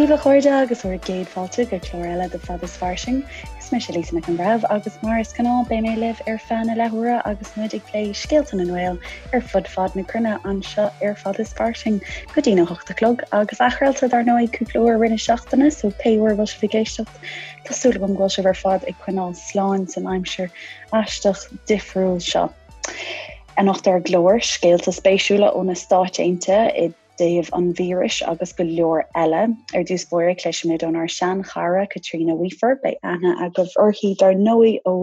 daoibh a chairde agus bhur gcéad fáilte go clár eile de Fad is Fairsing. Is mise Lisa Nic an Bhreithimh agus mar is gnáth beidh mé libh ar feadh na leathuaire agus muid ag plé scéalta na nGael ar fud fad na cruinne anseo ar Fad is Fairsing go dtí na hocht a chlog agus athchraolta dar ndóigh cúpla uair i rith na seachtaine so pé uair a bhfuil sibh ag éisteacht tá súil agam go bhfuil sibh ar fad ag coinneáil slán san aimsir aisteach difriúil seo. Anocht ar an gclár, scéalta spéisiúla ó na Stáit Aontaithe i dtaobh an víris agus go leor eile. Ar dtús báire, cloisfimid ónár sean-chara Caitríona Weafer. Beidh aithne agaibh uirthi dar ndóigh ó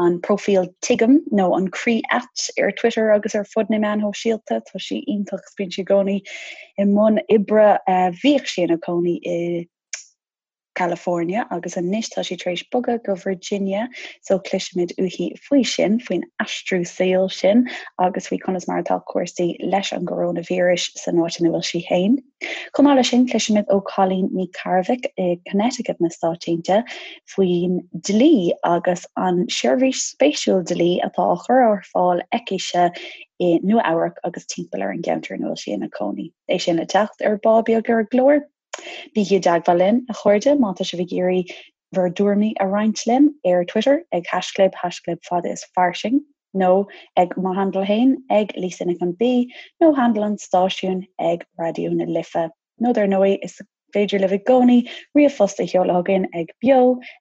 an próifíl Tuigim nó an Croí Ait ar Twitter agus ar fud na meán shóisialta. Tá sí iontach, bíonn sí i gcónaí i mbun oibre. Bhíodh sí ina cónaí i California agus anois tá sí tar éis bogadh go Virginia so cloisfimid uaithi faoi sin, faoin aistriú saoil sin agus faoi conas mar atá cúrsaí leis an gcoróinvíreas san áit ina bhfuil sí féin. Chomh maith leis sin cloisfimid ó Colleen Ní Cearbhaill i Connecticut na Stáit Aontaithe faoin dlí agus an seirbhís spéisiúil dlí atá á chur ar fáil aicise i Nua Eabhrac agus timpeall ar an gceantar ina bhfuil sí ina cónaí. É sin le teacht ar ball beag ar an gclár. Bígí i dteagmháil linn, a chairde, má tá sibh ag iarraidh bhur dtuairimí a roinnt linn ar Twitter ag haischlib haischlib fad is fairsing nó ag mo handle féin ag Lisa Nic an B nó handle an stáisiúin ag Raidió na Life. Nó dar ndóigh, is féidir libh i gcónaí ríomhphost a sheoladh chugainn ag beo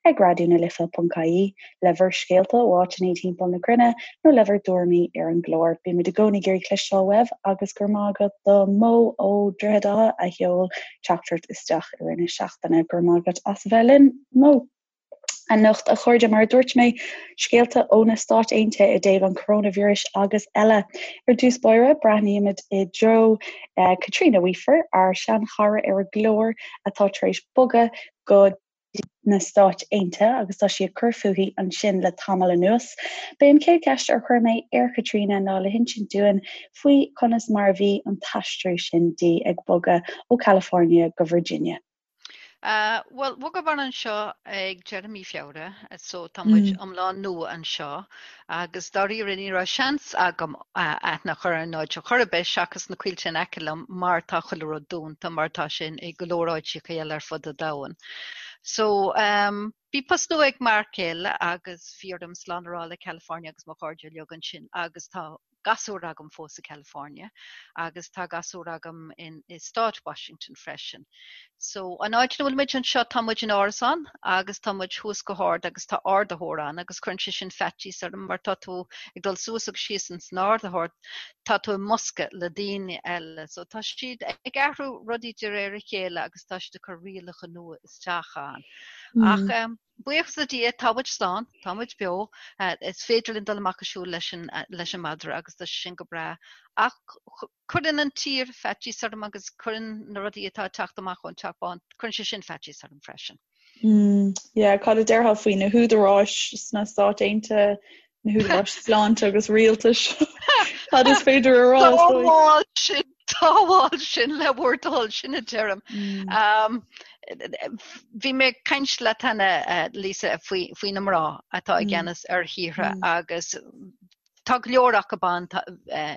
ag raidionalife.ie le bhur scéalta ó áiteanna timpeall na cruinne nó le bhur dtuairimí ar an gclár. Bímid i gcónaí ag iarraidh cloisteáil uaibh agus go raibh maith agat do Mo ó Droichead Átha a sheol teachtaireacht isteach i rith na seachtaine. Go raibh maith agat as a bheith linn, Mo. Anocht, a chairde, mar a dúirt mé, scéalta ó na Stáit Aontaithe i dtaobh an choróinvíris agus eile. Ar dtús báire, breathnaímid i dtreo Caitríona Weafer, ár seanchara ar an gclár atá tar éis bogadh go na Stáit Aontaithe agus tá sí ag cur fúithi ansin le tamall anuas. B'é an chéad cheist ar chuir mé ar Chaitríona ná le hinsint dúinn faoi conas mar a bhí an t-aistriú sin di ag bogadh ó California go Virginia. Bhuel, bhogamar anseo ag deireadh mí Feabhra, so tá muid iomlán nua anseo agus dáiríre ní raibh seans agam aithne a chur ar an áit ar chor ar bith seachas na coillte in aice liom mar tá chuile rud dúnta mar tá sé i go leor áiteacha eile ar fud an domhain. So bhí post nua ag m'fhear céile agus bhí orm slán a rá le California agus mo chairde uilig ansin agus tá gasúr agam fós i California agus tá gasúr agam in i stát Washington freisin. So an áit ina bhfuil muid anseo tá muid in árasán agus tá muid thuas go hard agus tá ardaitheoir ann agus cuireann sé sin faitíos orm mar tá tú ag dul suas agus síos ins an ardaitheoir tá tú i mbosca le daoine eile. So tá siad ag athrú rudaí de réir a chéile agus tá siad ag cur rialacha nua isteach ann. Ach um, Buíochas le Dia, tá muid slán, tá muid beo, is féidir linn dul amach ag siúl leis an leis an madra agus tá sé sin go breá. Ach cuireann an tír faitíos orm agus cuireann na rudaí atá ag teacht amach ón Teach Bán, cuireann sé sin faitíos orm freisin. Mm, yeah, cad a déarfá faoi na húdaráis sna Stáit Aontaithe, na húdaráis sláinte agus rialtais? Cad is féidir a rá? Sábháil sinn, sábháil sinn le bhur dtoil, sin a deirim. Bhí mé ag caint leat cheana, Lisa, faoi faoi na mná atá i gceannas ar thíortha agus tá go leor acu ban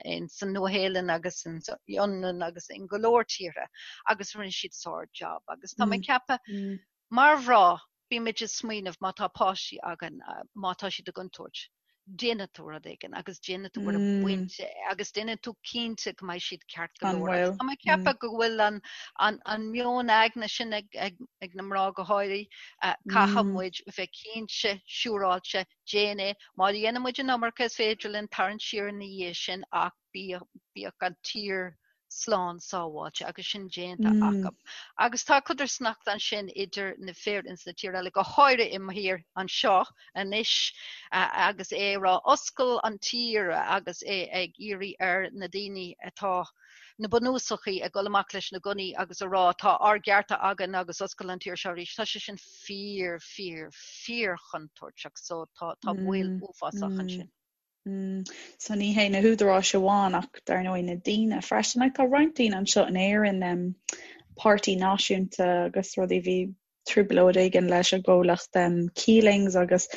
in san Nua-Shéalainn agus in Fhionlainn agus in go leor tíortha agus rinne siad sár-job agus tá mé ag ceapadh Mar mhná, bímid ag smaoineamh má tá páistí againn, má tá siad i gcontúirt, déanfaidh tú rud éigin agus déanfaidh tú ar an bpointe agus déanfaidh tú cinnte go mbeidh siad ceart go leor. Agus tá mé ag ceapadh go bhfuil an, an, an meon aigne sin ag, ag, ag na mná go háirithe, caithfidh muid bheith cinnte, siúráilte, déan é. Má dhéanann muid an iomarca is féidir linn tarraingt siar ina dhiaidh sin ach bíodh, bíodh an tír slán sábháilte agus sin déanta acu. Agus tá codarsnacht ansin idir na fir ins na tír eile, go háirithe i mo thír anseo anois agus é ag rá oscail an tír agus é ag iarraidh ar na daoine atá na bunúsachaí ag dul amach leis na gunnaí agus a rá tá ár gcearta againn agus oscail an tír seo arís. Tá sé sin fíor, fíor, fíor chontúirteach so tá tá baol uafásach ansin. So ní hé na húdaráis amháin ach dar ndóigh na daoine freisin. Like, tá roinnt daoine anseo in Éirinn, um, páirtí náisiúnta agus rudaí bhí trioblóid éigin leis an gcomhlacht um, Keelings agus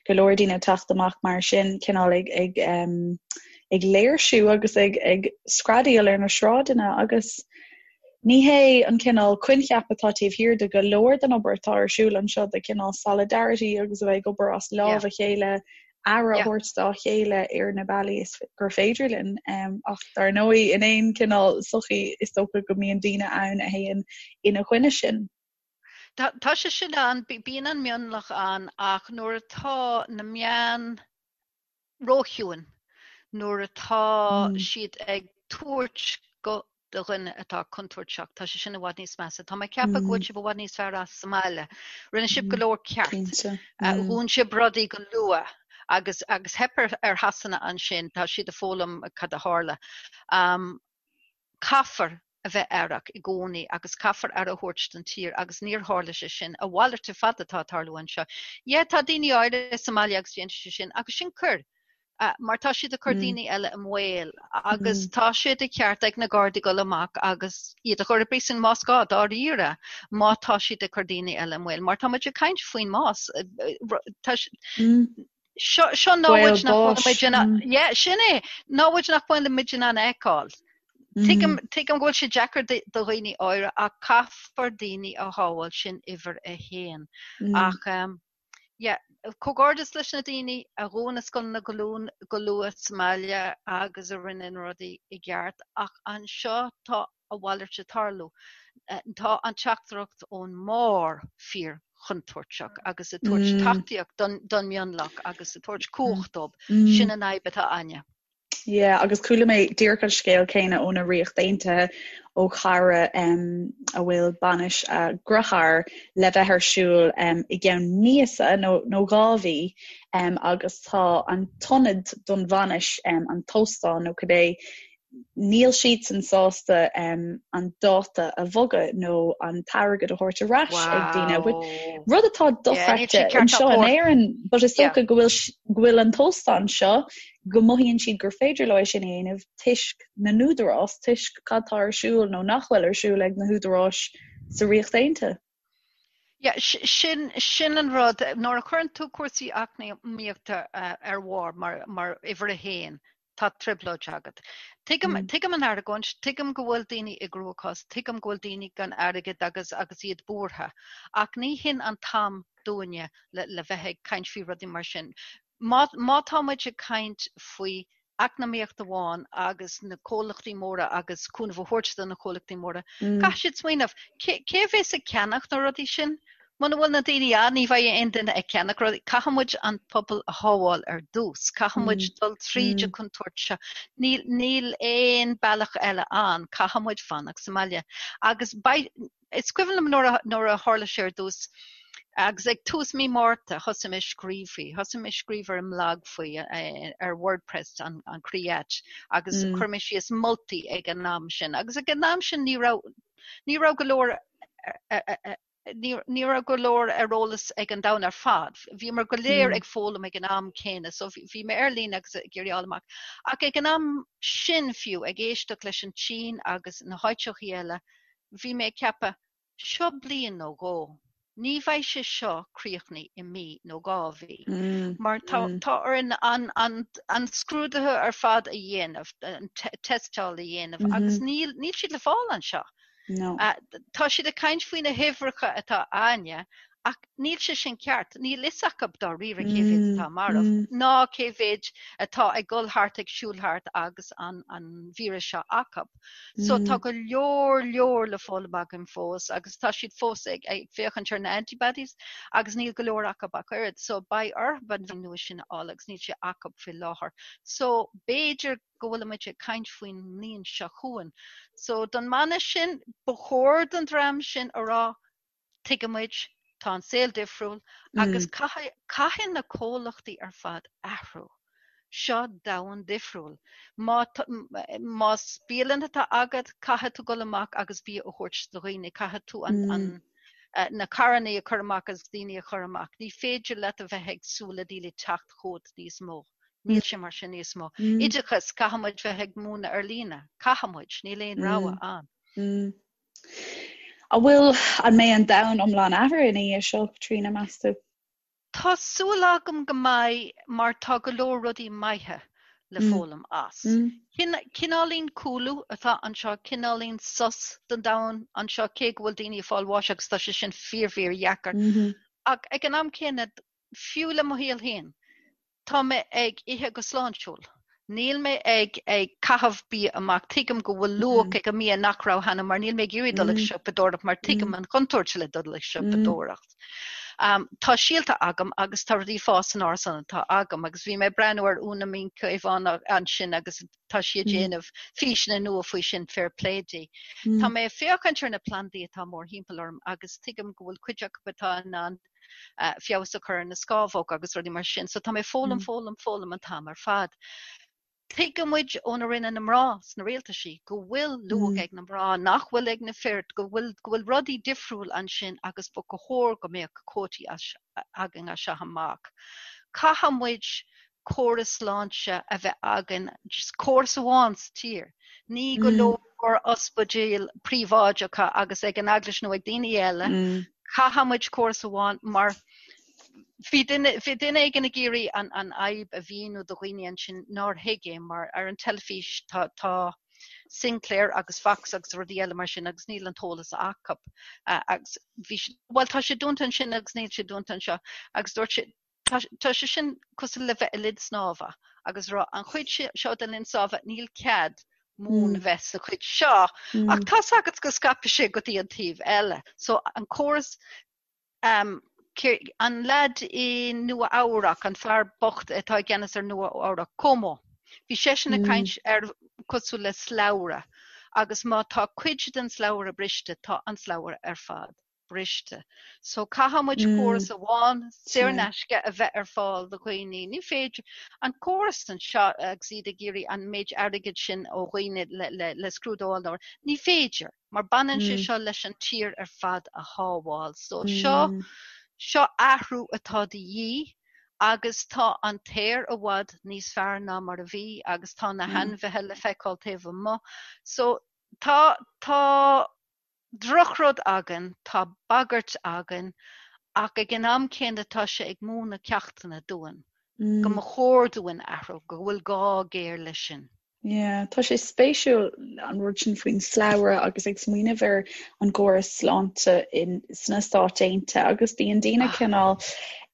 go leor daoine ag teacht amach mar sin cineál ag, ag, um, ag léirsiú agus ag, ag screadaíl ar na sráideanna agus. Ní hé an cineál coincheap atá taobh thiar de go leor den obair atá ar siúl anseo, de chineál solidarity agus a bheith ag obair as lámh a chéile, aire a thabhairt dá chéile ar na bealaí is gur féidir linn. Ach dar ndóigh, in aon chineál sochaí is dócha go mbíonn daoine ann a théann ina choinne sin. Tá sé sin ann, bíonn an mionlach ann ach nuair atá na meáin róchiúin, nuair atá siad ag tabhairt guth do dhuine atá contúirteach, tá sé sin i bhfad níos measa. Tá mé ag ceapadh go bhfuil sibh i bhfad níos fearr as sa mbaile. Rinne sibh go leor ceart. Dhún sibh rudaí go luath agus agus theip ar ar Shasana ansin, tá siad ag foghlaim cad a tharla. Caithfear a bheith aireach i gcónaí agus caithfear aire a thabhairt don tír agus níor tharla sé sin. A mhalairt ar fad atá ag tarlú anseo. Yeah, tá daoine áirithe sa mbaile agus déanann siad sin agus sin coir mar tá siad ag cur daoine eile i mbaol agus tá sé de cheart ag na Gardaí dul amach agus iad a chur i bpríosún más gá, dáiríre, má tá siad ag cur daoine eile i mbaol mar tá muid ag caint faoin mbás. Tá Seo seo namhaid nach bhfuil muid in ann yeah, sin é, namhaid nach bhfuil muid in ann a fheiceáil. Tuigim tuigim go bhfuil sé deacair do dhaoine áirithe ach caithfear daoine a shábháil sin uimhir a haon. Ach yeah, comhghairdeas leis na daoine a dhún na scoileanna go luath go luath sa mbaile agus a rinne na rudaí i gceart ach anseo tá a mhalairt ag tarlú. Tá an teachtaireacht ón mbarr fíor chontúirteach agus ag tabhairt tacaíocht don mionlach agus ag tabhairt cumhacht dóibh. Sin an fhadhb atá againne. Yeah, agus chuala mé díreach an scéal céanna óna Ríocht Aontaithe ó chara um, a bhfuil bainis a dearthár le bheith ar siúl um, i gceann míosa nó, nó 2 mhí um, agus tá an t-ionad don bhainis um, an t-óstán nó cibé níl siadsan sásta an dáta a bhogadh nó an t-airgead a thabhairt ar ais ag daoine. Rud atá dochreidte anseo in Éirinn, but is dócha go bhfuil go bhfuil an t-óstán seo go mothaíonn siad gur féidir leo é sin a dhéanamh toisc na n-údarás, toisc cad tá ar siúl nó nach bhfuil ar siúl ag na húdaráis sa Ríocht Aontaithe. Yeah, sin, sin an rud. Nuair a chuireann tú cúrsaí eacnamaíochta ar bharr mar, mar uimhir a haon, tá trioblóid agat. Tuigim, tuigim an argóint, tuigim go bhfuil daoine i gcruachás, tuigim go bhfuil daoine gan airgead agus, agus iad buartha. Ach ní hin an t-am dúinne le, le bheith ag caint faoi rudaí mar sin. Má, má tá muid ag caint faoi eacnamaíocht amháin agus na comhlachtaí móra agus cúnamh a thabhairt do na comhlachtaí móra, caithfidh siad smaoineamh, cé, cé a bhéas ag ceannach na rudaí sin? Muna bhfuil na daoine ann, ní bheidh aon duine ag ceannach rudaí. Caithfidh muid an pobal a shábháil ar dtús. Caithfidh muid dul tríd an chontúirt seo. Níl, níl aon bealach eile ann. Caithfidh muid fanacht sa mbaile. Agus beidh, is cuimhin liom nuair a, nuair a tharla sé ar dtús, agus ag tús mí Márta thosaigh mé ag scríobh faoi. Thosaigh mé ag scríobh ar an mblag faoi, ar WordPress, an, an Croí-Ait, agus chuir mé síos moltaí ag an am sin. Agus ag an am sin ní raibh, ní raibh go leor ní raibh go leor ar eolas ag an domhan ar fad. Bhíomar go léir ag foghlaim ag an am céanna, so bhí mé ar líne agus ag iarraidh fháil amach. Ach ag an am sin fiú, ag éisteacht leis an tSín agus na háiteachaí eile, bhí mé ag ceapadh, seo bliain nó dhó, ní bheidh sé seo críochnaithe i mí nó 2 mhí, mar tá tá orainn an an an scrúduithe ar fad a dhéanamh, an tástáil a dhéanamh agus níl níl siad le fáil anseo. No. Tá siad ag caint faoi na huimhreacha atá a'ainne ach níl sé sin ceart. Níl fhios acu dáiríre cé mhéad atá marbh ná cé mhéad atá ag dul thart ag siúl thart agus an an víreas seo acu. So tá go leor leor le foghlaim againn fós agus tá siad fós ag ag féachaint ar na antibodies agus níl go leor acu ach oiread. So beidh orthu an nua sin a fháil agus níl sé acu faoi láthair. So b'fhéidir go bhfuilimid ag caint faoin mbliain seo chugainn. So don mbanna sin, ba chóir don dream sin a rá, tuigimid, tá an saol difriúil agus caithfidh, caithfidh na comhlachtaí ar fad athrú. Seo domhan difriúil. Má, más bialann atá agat, caithfidh tú dul amach agus bia a thabhairt do dhaoine, caithfidh tú an, an, na carrannaí a chur amach agus daoine a chur amach. Ní féidir leat a bheith ag súil le daoine teacht chugat níos mó. Níl sé mar sin níos mó. Oideachas, caithfidh muid bheith ag múineadh ar líne. Caithfidh muid, níl aon rogha ann. An bhfuil, an mbeidh an domhan iomlán athraithe ina dhiaidh seo, Tríona, meas tú? Tá súil agam go mbeidh mar tá go leor rudaí maithe. le foghlaim as. Cineáilín cúlú atá anseo, cineáilín sos don domhan anseo, cé go bhfuil daoine ag fáil bháis agus tá sé sin fíor fíor dheacair. Ach ag an am céanna, fiú le mo shaol féin, tá mé ag ithe go sláintiúil. Níl mé ag ag caitheamh bia amach. Tuigim go bhfuil luach ag an mbia nach raibh cheana mar níl mé ag iarraidh dul ag siopadóireacht mar tuigim an chontúirt le dul ag siopadóireacht. Tá síolta agam agus tá rudaí ag fás san árasán atá agam agus bhí mé ag breathnú ar Úna Mín Caomhán ansin agus tá sí ag déanamh físeanna nua faoi sin, fair play di. Tá mé ag féachaint ar na plandaí atá mórthimpeall orm agus tuigim go bhfuil cuid acu atá in ann feabhas a chur ar na scámhóga agus rudaí mar sin. So tá mé ag foghlaim, foghlaim, foghlaim an t-am ar fad. Tuigeann muid óna rinne na mná sna rialtaisí go bhfuil luach ag na mná nach bhfuil ag na fir, go bhfuil go bhfuil rudaí difriúil ansin agus ba chóir go mbeadh cuótaí againn as seo amach. Caithfidh muid córas sláinte a bheith againn, just córas amháin sa tír. Ní go leor ospidéil príobháideacha agus ag an eaglais nó ag daoine eile. Caithfidh muid córas amháin mar bhí duine bhí duine éigin ag iarraidh an an fhadhb a mhíniú do dhaoine ansin nár thuig é mar ar an teilifís tá tá Sinclair agus Fox agus rudaí eile mar sin agus níl an t-eolas acu agus bhí siad bhuel tá sé dúnta ansin agus níl sé dúnta anseo agus dúirt sé Tá sé sin cosúil le bheith i linn snámha agus rá an chuid seo den linn snámha níl cead mún a bheith sa chuid seo ach tá's agat go scaipfidh sé go dtí an taobh eile. So an córas um, an leaid i Nua Eabhrac, an fear bocht atá i gceannas ar Nua Eabhrac, Cuomo, bhí seisean ag caint ar cosúil le slabhra agus má tá cuid den slabhra briste, tá an slabhra ar fad. briste. So caithfidh muid córas amháin saor in aisce a bheith ar fáil do dhaoine. Ní féidir an córas anseo agus iad ag iarraidh an méid airgid sin ó dhaoine le, le, le scrúdú a fháil. Ní féidir, mar baineann sé seo leis an tír ar fad a shábháil. So seo, seo athrú atá de dhíth agus tá an t-aer i bhfad níos fearr ná mar a bhí agus tá na hainmhithe le feiceáil taobh amuigh. So tá, tá drochrud againn, tá bagairt againn, ach ag an am céanna tá sé ag múineadh ceachtanna dúinn, go mba chóir dúinn athrú, go bhfuil gá géar leis sin. Yeah, tá sé spéisiúil an rud sin faoin slabhra agus ag smaoineamh ar an gcóras sláinte in sna Stáit Aontaithe agus bíonn daoine cineál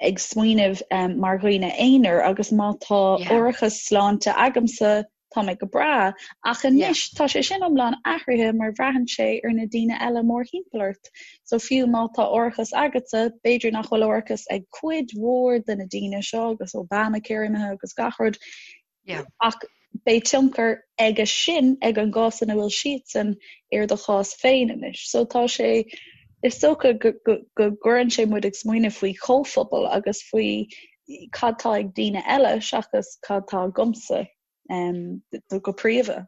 ag smaoineamh um, mar dhaoine aonair agus má tá árachas sláinte agamsa tá mé go breá, ach anois tá sé sin iomlán athraithe mar bhraitheann sé ar na daoine eile mórthimpeall ort. So fiú má tá árachas agatsa, b'fhéidir nach bhfuil árachas ag cuid mhór de na daoine seo agus Obamacare imithe agus gach rud. Ach beidh tionchar aige sin ag an gcás ina bhfuil siadsan ar do chás féin anois. So tá sé is dócha go gcuireann sé muid ag smaoineamh faoi chomhphobal agus faoi cad tá ag daoine eile seachas cad tá agamsa. go príomha.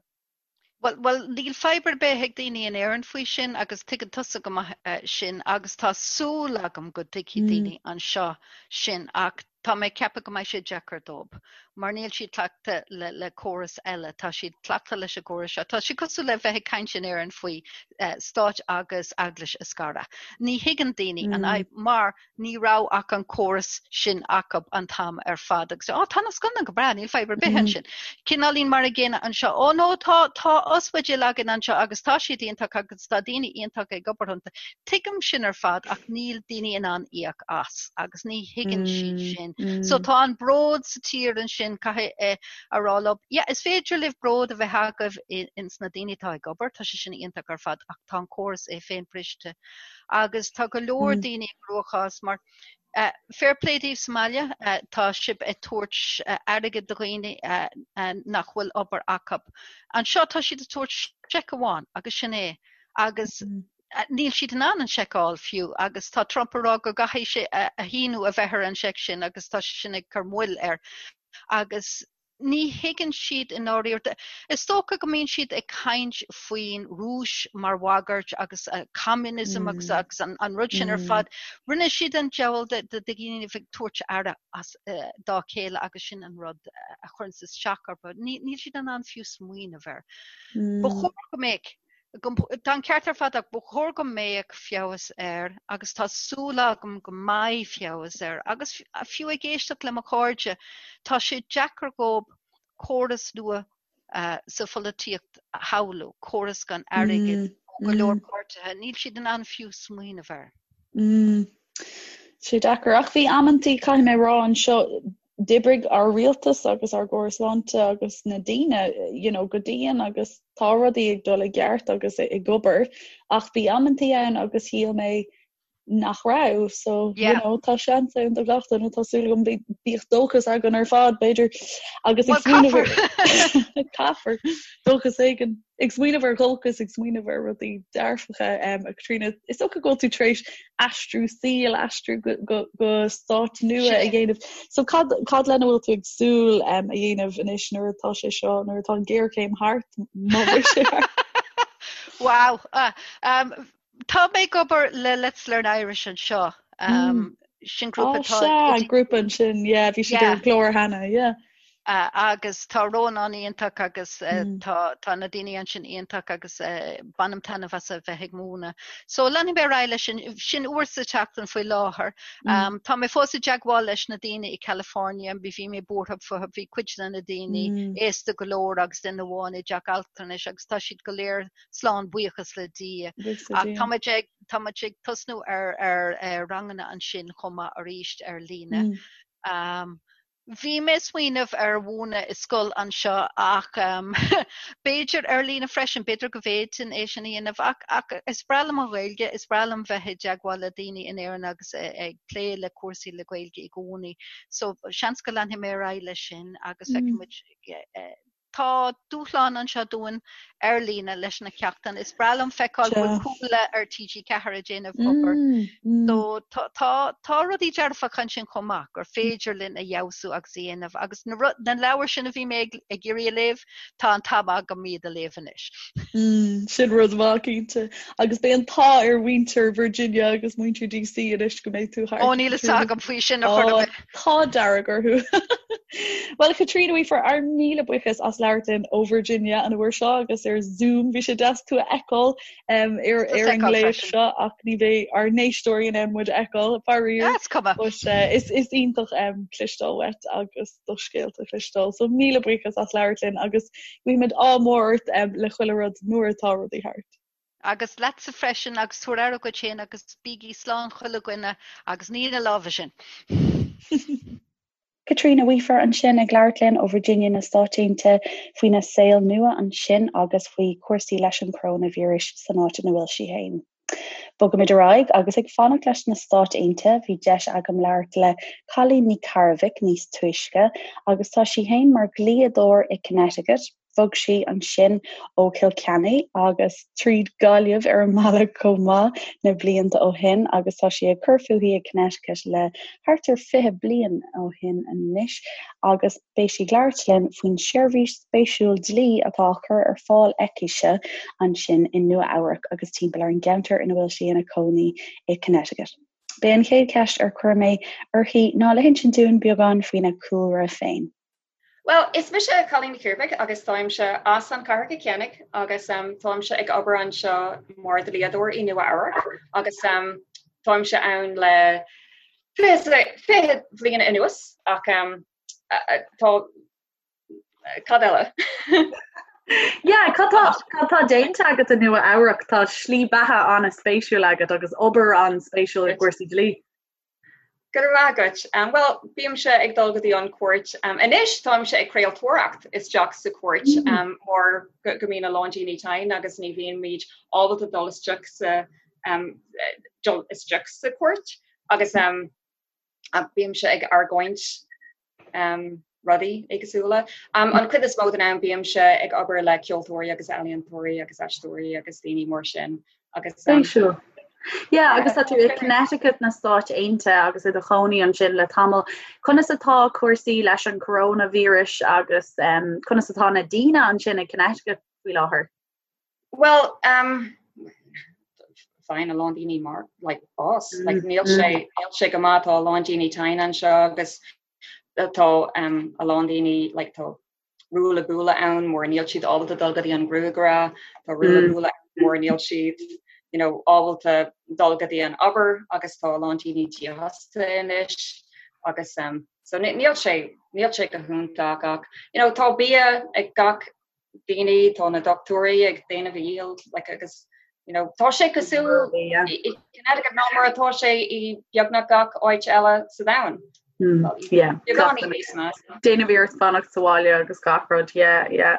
Bhuel, bhuel, níl fadhb ar bith ag daoine in Éirinn faoi sin agus tuigeann tusa go maith eh, sin agus tá súil agam go dtuigfidh daoine anseo sin ach tá mé ag ceapadh go mbeidh sé deacair dóibh mar níl siad cleachta le, le córas eile, tá siad cleachta leis an gcóras seo. Tá sé cosúil le bheith ag caint in Éirinn faoi eh, stáit agus eaglais a scaradh. Ní thuigeann daoine an fhadhb mar ní raibh ach an córas sin acu an t-am ar fad agus ó tá na scoileanna go breá, níl fadhb ar bith ansin. Cineáilín mar an gcéanna anseo, ó no tá tá ospidéil againn anseo agus tá siad iontach agus tá daoine iontacha ag obair iontu. Tuigim sin ar fad ach níl daoine in ann íoc as agus ní thuigeann siad sin. So tá an bród sa tír ansin caithfidh a rá leo, yeah, is féidir libh bród a bheith agaibh ins na daoine atá ag obair, tá sé sin iontach ar fad ach tá an córas é féin briste. agus tá go leor daoine i gcruachás mar fair play daoibh sa mbaile, tá sibh ag tabhairt airgead do dhaoine nach bhfuil obair acu. Anseo tá siad ag tabhairt seic amháin agus sin é agus níl siad in ann an seic a fháil fiú agus tá Trump ag rá go gcaithfidh sé a shíniú a bheith ar an seic sin agus tá sé sin ag cur moill air agus ní thuigeann siad i ndáiríre. Is dócha go mbíonn siad ag caint faoin Rúis mar bhagairt agus communism agus agus an, an rud sin ar fad. Rinne siad an diabhal de de dhaoine ag tabhairt aire as dá chéile agus sin an rud a chuireann isteach orthu. Níl siad in ann fiú smaoineamh air. Ba chóir go mbeadh Tá an ceart ar fad ach ba chóir go mbeadh feabhas air agus tá súil agam go mbeidh feabhas air agus fiú ag éisteacht le mo chairde, tá sé deacair dhóibh. córas nua sa pholaitíocht a shamhlú, córas gan airgead ó go leor páirtithe, níl siad in ann fiú smaoineamh air. Tá sé deacair. Ach bhí amantaí, caithfidh mé a rá anseo, d'oibrigh ár rialtas agus ár gcóras sláinte agus na daoine you know, go dian agus tá rudaí ag dul i gceart agus ag obair ach bhí amantaí ann agus shíl mé nach raibh so you know, tá seans ann do gach duine tá súil agam bíodh dóchas againn ar fad b'fhéidir agus ag smaoineamh caithfear dóchas éigin ag smaoineamh ar dhóchas ag smaoineamh ar rudaí dearfacha um, a Chaitríona is dócha go bhfuil tú tar éis aistriú saoil aistriú go, go, go stát nua a dhéanamh so cad, cad lena bhfuil tú ag súil um, a dhéanamh anois nuair atá sé seo nuair atá an géarchéim thart má bheidh sé thart Wow. Uh, um, Tá mé ag obair le Let's Learn Irish anseo. Um, sin grúpa tá Sea, grúpa ansin, yeah, bhí siad ar an gclár cheana, yeah. Uh, agus tá Rónán iontach agus uh, mm. tá, tá na daoine ansin iontach agus uh, bainim taitneamh as a bheith ag múineadh. So leanfaidh mé ar aghaidh leis sin, sin uair sa tseachtain faoi láthair. Mm. Um, tá mé fós i dteagmháil leis na daoine i California, bhí bhí mé buartha fúthu, bhí cuid de na daoine mm. aosta go leor agus duine amháin i dteach altranais agus tá siad go léir slán buíochas le Dia. Ach tá muid ag tá muid ag tosnú ar ar ar ranganna ansin chomh maith arís ar líne. Mm. Um, bhí mé ag smaoineamh ar mhúineadh i scoil anseo ach um, b'fhéidir ar líne freisin, b'fhéidir go bhféadfainn é sin a dhéanamh ach, ach is breá liom an Ghaeilge, is breá liom bheith i dteagmháil le daoine in Éirinn agus ag plé le cúrsaí le Gaeilge i gcónaí. So seans go leanfaidh mé ar aghaidh leis sin agus mm. feicfidh muid eh, Tá dúshlán anseo dúinn ar líne leis na ceachtanna. Is breá liom feiceáil go bhfuil Cuala ar TG4 ag déanamh obair. So tá tá rudaí dearfacha ansin chomh maith gur féidir linn a fheabhsú agus a dhéanamh agus na na leabhair sin a bhí mé ag ag iarraidh a léamh, tá an t-am agam iad a léamh anois. Sin rud maith cinnte. Agus beidh an t-ádh ar mhuintir Virginia agus muintir DC anois go mbeidh tú thart. Ó níl fhios agam faoi sin a chur ar bith. Tá dearg orthu. Bhuel, Caitríona Weafer, ár míle buíochas as labhairt linn ó Virginia an uair seo agus ar Zoom. Bhí sé deas tú a fheiceáil um, ar, ar an ngléas seo ach ní bheidh ár n-éisteoirí in ann muid a fheiceáil, faraor. Is cuma. But, uh, is, is iontach um, cloisteáil uait agus do scéalta a chloisteáil. So míle buíochas as labhairt linn agus guímid ádh mór ort um, le chuile rud nuair atá rudaí thart. Agus leatsa freisin agus tabhair aire dhuit féin agus bígí slán chuile dhuine agus nigh na lámha sin. Caitríona Weafer ansin ag labhairt linn ó Virginia na Stáit Aontaithe faoina saol nua ansin agus faoi chúrsaí leis an choróinvíreas san áit ina bhfuil sí féin. Bogaimid ar aghaidh agus ag fanacht leis na Stáit Aontaithe bhí deis agam labhairt le Cailín Ní Chearbhaill níos túisce agus tá sí féin mar dhlíodóir i Connecticut. Bhog sí ansin ó Chill Chainnigh agus tríd Gaillimh ar an mbealach chomh maith na blianta ó shin agus tá sí ag cur fúithi i Connecticut le thart ar 20 bliain ó shin anois agus beidh sí ag labhairt linn faoin seirbhís spéisiúil dlí atá á cur ar fáil aicise ansin i Nua Eabhrac agus timpeall ar an gceantar ina bhfuil sí ina cónaí i Connecticut. B'é an chéad cheist ar chuir mé uirthi ná le hinsint dúinn beagán faoina cúlra féin. Bhuel, is mise Cailín Ní Chiarbhaigh agus táimse as an chathair Cill Chainnigh agus táimse ag obair anseo mar dhlíodóir i Nua Eabhrac agus táimse ann le 20 bhliain anuas ach tá cad eile? Yeah, cad tá cad tá déanta agat i Nua Eabhrac? Tá slí beatha an-spéisiúil agat agus obair an-spéisiúil i gcúrsaí dlí. Go raibh maith agat. Bhuel, bímse ag dul go dtí an cúirt anois, táimse ag craoltóireacht isteach sa chúirt mar go mbíonn a lán daoine tinn agus ní bhíonn ábalta dul isteach sa dul isteach sa chúirt agus bímse ag argóint rudaí éagsúla. An chuid is mó den am bímse ag obair le ceoltóirí agus ealaíontóirí agus aisteoirí agus daoine mar sin agus. Spéisiúil. Yeah, agus tá tú i Connecticut na Stáit Aontaithe agus i do chónaí ansin le tamall. Conas atá cúrsaí leis an coronavirus agus um, conas atá na daoine ansin i Connecticut faoi láthair? Well, um, faigheann a lán daoine mar like, bás. Mm, like, níl mm. sé níl sé go maith tá a lán daoine tinn anseo agus tá um, a lán daoine like, tá ruaille buaille ann mar níl siad ábalta dul go dtí an gruagaire, tá ruaille mm. buaille mar níl siad you know, ábalta dul go dtí an obair agus tá a lán daoine dífhostaithe anois. agus um, so níl sé níl sé go hiontach ach you know, tá bia ag gach daoine tá na dochtúirí ag déanamh a dhícheall like, agus you know, tá sé cosúil i Connecticut ná mar atá sé i beagnach gach áit eile sa domhan. Hmm, Déanamh iarracht fanacht sa bhaile agus gach rud yeah, yeah.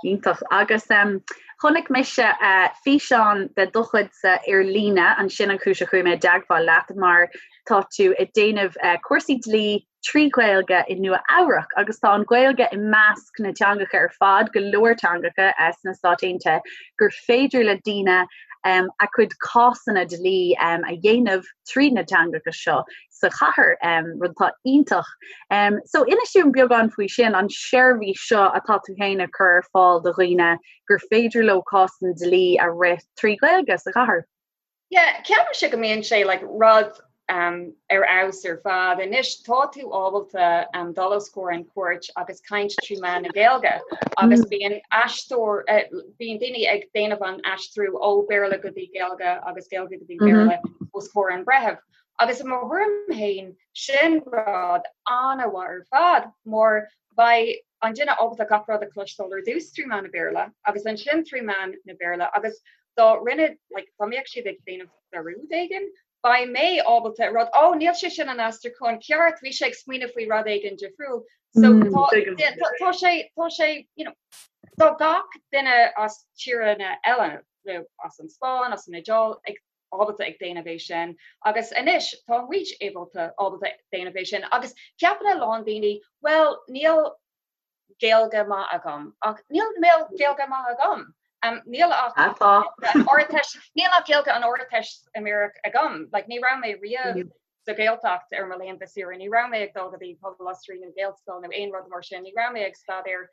Iontach agus um, chonaic mise uh, físeán de do chuidse ar líne ansin an chúis a chuaigh mé i dteagmháil leat mar tá tú ag déanamh uh, cúrsaí dlí trí Ghaeilge i Nua Eabhrac agus tá an Ghaeilge i measc na teangacha ar fad, go leor teangacha sna Stáit Aontaithe, gur féidir le daoine a gcuid cásanna dlí a dhéanamh trí na teangacha seo sa chathair, rud atá iontach. So inis dúinn beagán faoi sin, an seirbhís seo atá tú féin ag cur ar fáil do dhaoine gur féidir leo cásanna dlí a rith trí Ghaeilge sa chathair. Yeah, ceapaimse go mbíonn sé like rud um, ar fheabhas ar fad. Anois tá tú ábalta um, dul os comhair an cúirt agus caint trí mheán na Gaeilge agus mm. bíonn aisteoir uh, bíonn daoine ag déanamh an aistriú ó Béarla go dtí Gaeilge agus Gaeilge go dtí mm-hmm. Béarla mm -hmm. os comhair an breitheamh. Agus i mo thuairim féin sin rud an-mhaith ar fad mar beidh an duine ábalta gach rud a chloisteáil ar dtús trí mheán na Béarla agus ansin trí mheán na Béarla agus dá rinne like dá mbeadh siad ag déanamh dearúd éigin, beidh mé ábalta rud oh níl sé sin an aistriúchán ceart, bhí sé ag smaoineamh faoi rud éigin difriúil. So mm, tá, tá, tá sé tá sé you know, tá gach duine as tíortha eile nó as an Spáinn, as an Iodáil ag ábalta ag déanamh é sin agus anois tá muid ábalta ábalta déanamh é sin agus ceapann a lán daoine well níl Gaeilge maith agam ach níl Gaeilge maith agam. Um, níl ach Ardteist níl ach Gaeilge an Ardteistiméireacht agam, like, ní raibh mé riamh mm. sa Ghaeltacht ar mo laethanta saoire, ní raibh mé ag dul go dtí Pobal Osraí nó Gaelscoil nó aon rud mar sin, ní raibh mé ag staidéar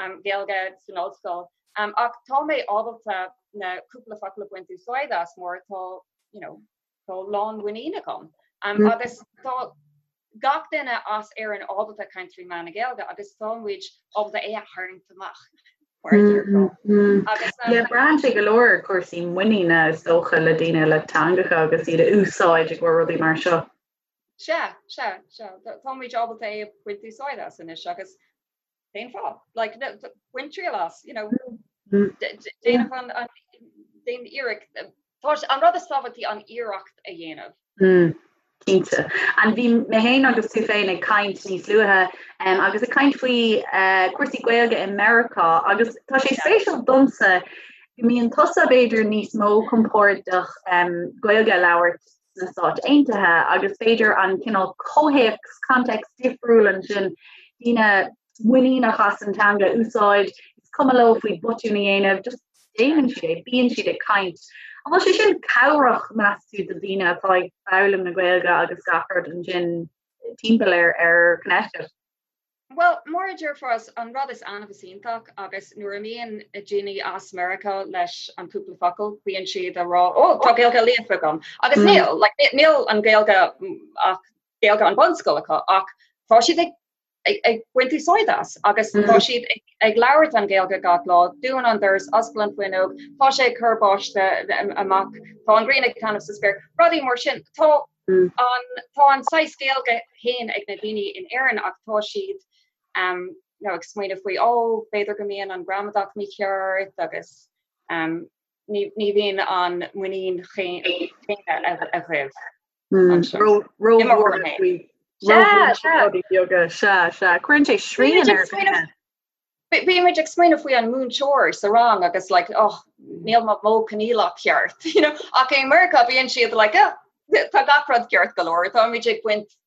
um, Gaeilge san ollscoil. Um, ach tá mé ábalta na cúpla focal a bhaint úsáid as mar tá you know, tá lánmhuinín agam. Um, mm. Agus tá gach duine as Éirinn ábalta caint trí mheán na Gaeilge agus tá muid ábalta é a tharraingt amach. Mm, mm. Agus um, braitheann sé go leor cúrsaí muiníne is dócha le daoine le teangacha agus iad a úsáid i gcomhair rudaí mar seo. Sea, sea, sea. Tá muid ábalta é a bhaint úsáid as anois agus Cén fáth? Like, bain triail as, you know, déanamh an, an, déan iarracht, tá an rud is tábhachtaí an iarracht a dhéanamh. Mm, cinnte. And bhí mé féin agus tú féin ag caint níos luaithe um, agus ag caint faoi uh, cúrsaí Gaeilge i Meiriceá agus tá sé spéisiúil domsa go mbíonn tusa b'fhéidir níos mó compordach um, Gaeilge a labhairt sna Stáit Aontaithe agus b'fhéidir an cineál comhthéacs, context difriúil ansin, daoine muiníneach as an teanga a úsáid, is cuma leo faoi botún a dhéanamh, just déanann siad é, bíonn siad ag caint. An bhfuil sé sin cabhrach, meas tú, do dhaoine atá ag foghlaim na Gaeilge agus gach rud ansin timpeall ar ar Connecticut? Bhuel, mar a déarfá, an rud is annamh is iontach agus nuair a mbíonn daoine as Meiriceá leis an cúpla focal, bíonn siad a rá, oh, tá Gaeilge líofa agam. Agus mm. níl, like, níl an Gaeilge ach Gaeilge an bunscoil acu ach tá siad ag, ag, ag baint úsáid as agus mm. tá siad ag, ag labhairt an Gaeilge gach lá, dún an doras, oscail an fuinneog, tá sé ag cur báistí amach, tá an ghrian ag taitneamh sa spéir, rudaí mar sin. Tá An tá an saghas Gaeilge féin ag na daoine in Éirinn ach tá siad um, you know, ag smaoineamh faoi ó oh, b'fhéidir go mbíonn an gramadach mícheart agus um, ní, ní bhíonn an muinín chéanna agaibh. Cuireann sé srian ar Bímid ag smaoineamh faoi an múinteoir sa rang agus like oh níl mo modh coinníollach ceart you know ach i Meiriceá bíonn siad like oh tá gach rud ceart go leor táimid ag baint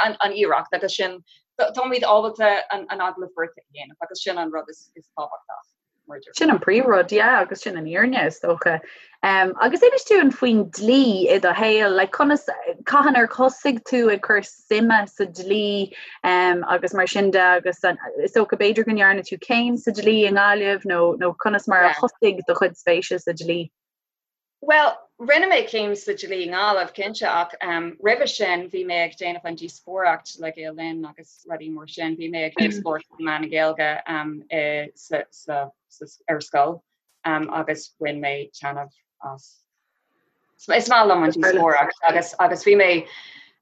an, an iarracht agus sin táimid ábalta an, an agallamh beirte a dhéanamh agus sin an rud is, is tábhachtach. Sin an príomhrud, yeah, agus sin an fhírinne is dócha. Um, agus inis dúinn faoin dlí i do shaol, like, conas cathain ar thosaigh tú ag cur suime sa dlí um, agus mar sin de agus an, is dócha b'fhéidir go ndearna tú céim sa dlí i nGaillimh nó, nó conas mar a thosaigh do chuid spéise sa dlí? Bhuel, rinne mé céim sa dlí i nGaillimh, cinnte, ach um, roimhe sin bhí mé ag déanamh an díospóireacht le Gael Linn agus rudaí mar sin. Bhí mé ag díospóireacht trí mheán na Gaeilge um, i, sa, sa, sa, ar scoil um, agus bhain mé taitneamh as. Is maith liom an díospóireacht agus, agus bhí mé.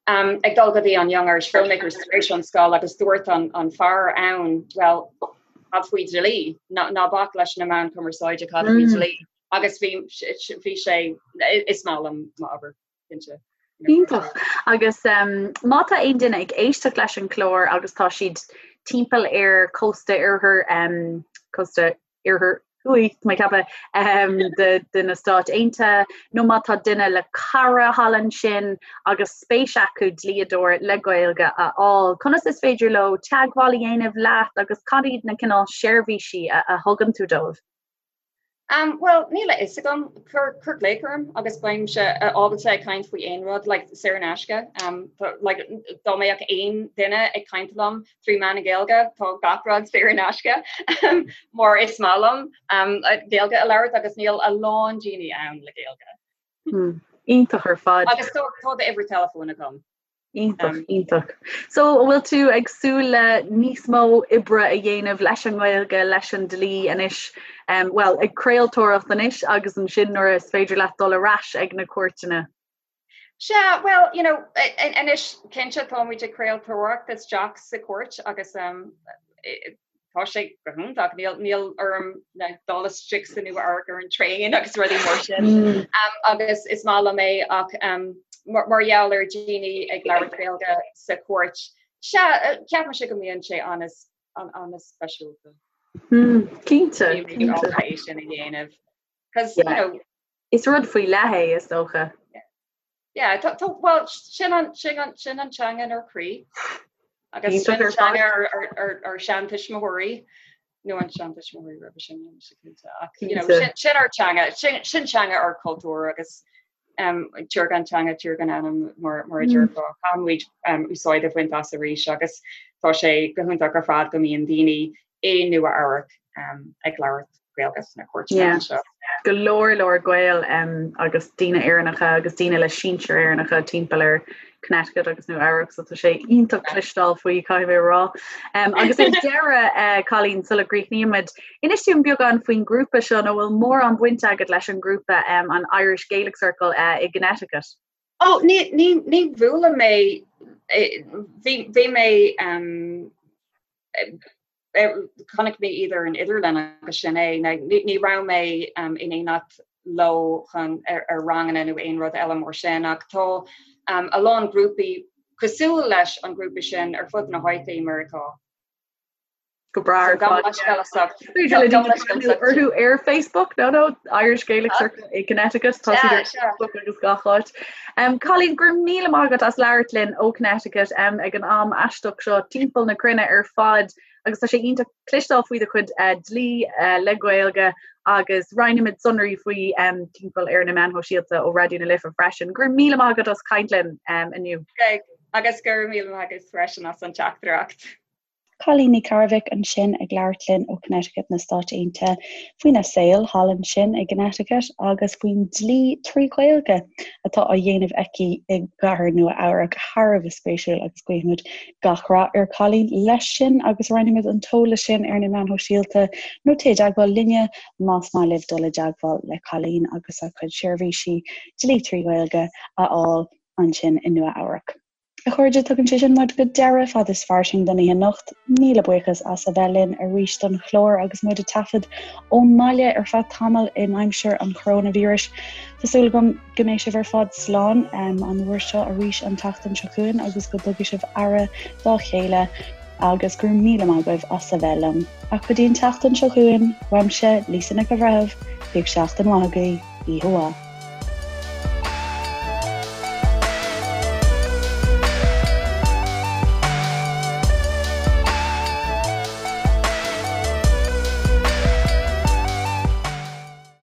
Um, ag dul go dtí an Young Irish Filmmakers tar éis an scoil agus dúirt an, an fear ann, well, cad faoi dlí, ná, ná bac leis na meáin cumarsáide cad faoi mm. dlí. Agus bhí, bhí sé, is maith liom m'obair, cinnte. Iontach. Agus um, má tá aon duine ag éisteacht leis an chlár agus tá siad timpeall ar cósta oirthear um, cósta oirthear thuaidh, tá mé ag ceapadh, um, de, de na Stáit Aontaithe, nó má tá duine le cara thall ansin agus spéis acu dlíodóir le Gaeilge a fháil, conas is féidir leo teagmháil a dhéanamh leat agus cad iad na cineál seirbhísí a, a thugann tú dóibh? Um, well, níl a fhios agam, cuir, cuir glaoch orm agus beimse ábalta ag caint faoi aon rud, like, saor in aisce. Um, tá, like, dá mbeadh aon duine ag caint liom trí mheán na Gaeilge, tá gach rud saor in aisce. Mar is maith liom um, Gaeilge a labhairt agus níl a lán daoine ann le Gaeilge. Hmm. Iontach ar fad. Agus tá tá d'uimhir teileafóin agam. Iontach, iontach. So, an bhfuil tú ag súil le níos mó oibre a dhéanamh leis an nGaeilge, leis an dlí anois, um, well, ag craoltóireacht anois agus ansin nuair is féidir leat dul ar ais ag na cúirteanna? Sea, well, you know, anois cinnte táimid ag craoltóireacht isteach sa chúirt agus um, tá sé go hiontach, níl, níl orm dul isteach sa Nua Eabhrac ar an traein agus rudaí mar sin. Mm. Um, agus is maith liom é ach um, mar, mar gheall ar daoine ag labhairt Gaeilge sa chúirt, sea, eh, ceapaimse go mbíonn sé an-speisialta. Mm, cinnte, cinnte. é sin a dhéanamh. Cos, you know, Is rud faoi leith é is dócha. Yeah, tá, tá, well, sin an, sin an, sin an teanga inár gcroí. Agus sin an teanga ár, ár, ár, ár seantuismitheoirí, nó an seantuismitheoirí roimhe sin, níl mise cinnte. Ach, you know, sin, sin ár teanga, sin, sin teanga ár cultúr agus um, tír gan teanga, tír gan anam mar, mar a déarfá. Caithfimid um, úsáid a bhaint as arís agus tá sé go hiontach ar fad go mbíonn daoine i Nua Eabhrac um, ag labhairt Gaeilge sna cúirteanna anseo. Go leor leor Gael um, agus daoine Éireannacha agus daoine le sinsir Éireannacha timpeall ar Connecticut agus Nua Eabhrac, so tá sé iontach cloisteáil faoi caithfidh mé a rá. Um, agus ar deireadh uh, Colleen sula gcríochnaímid, inis dúinn beagán faoin grúpa seo nó bhfuil mórán baint agat leis an grúpa um, an Irish Gaelic Circle uh, i gConnecticut. Oh, ní, ní, ní bhuail mé bhí, bhí mé um, Chonaic mé iad ar an idirlíon agus sin é. Ní raibh mé in éineacht leo chun ar ranganna nó aon rud eile mar sin ach tá a lán grúpaí cosúil leis an grúpa sin ar fud na háite i Meiriceá. Go breá ar fad. Orthu ar Facebook no no Irish Gaelic Circle i Connecticut tá siad ar Facebook agus gach áit. Um, Colleen, go raibh míle maith agat as labhairt linn ó Connecticut um, ag an am aisteach seo timpeall na cruinne ar fad agus tá sé iontach cloisteáil faoi do chuid uh, dlí uh, le Gaeilge agus roinnfimid sonraí faoi um, timpeall ar na meáin shóisialta ó Raidió na Life freisin. Go raibh míle maith agat as caint linn um, inniu. Okay. Agus go raibh míle maith agat freisin as an teachtaireacht. Colleen Ní Chearbhaigh ansin ag labhairt linn ó Connecticut na Stáit Aontaithe faoina saol thall ansin i gConnecticut agus faoin dlí trí Ghaeilge atá á dhéanamh aici i gcathair Nua Eabhrac. Thar a bheith spéisiúil agus guímid gach rath ar Colleen leis sin agus roinnfimid an t-eolas sin ar na meáin shóisialta nó téigh i dteagmháil linne más maith libh dul i dteagmháil le Colleen agus a cuid seirbhísí dlí trí Ghaeilge a fháil ansin i Nua Eabhrac. A chairde, tugann sé sin muid go deireadh Fad is Fairsing don oíche anocht. Míle buíochas as a bheith linn arís don chlár agus muid ag taifead ón mbaile ar feadh tamaill in aimsir an choróinvíris. Tá súil agam go mbeidh sibh ar fad slán an uair seo arís an tseachtain seo chugainn agus go dtugfaidh sibh aire dá chéile agus go raibh míle maith agaibh as a bheith liom. Ach go dtí an tseachtain seo chugainn, uaimse, Lisa Nic an Bhreithimh, bíodh seachtain mhaith agaibh, oíche mhaith.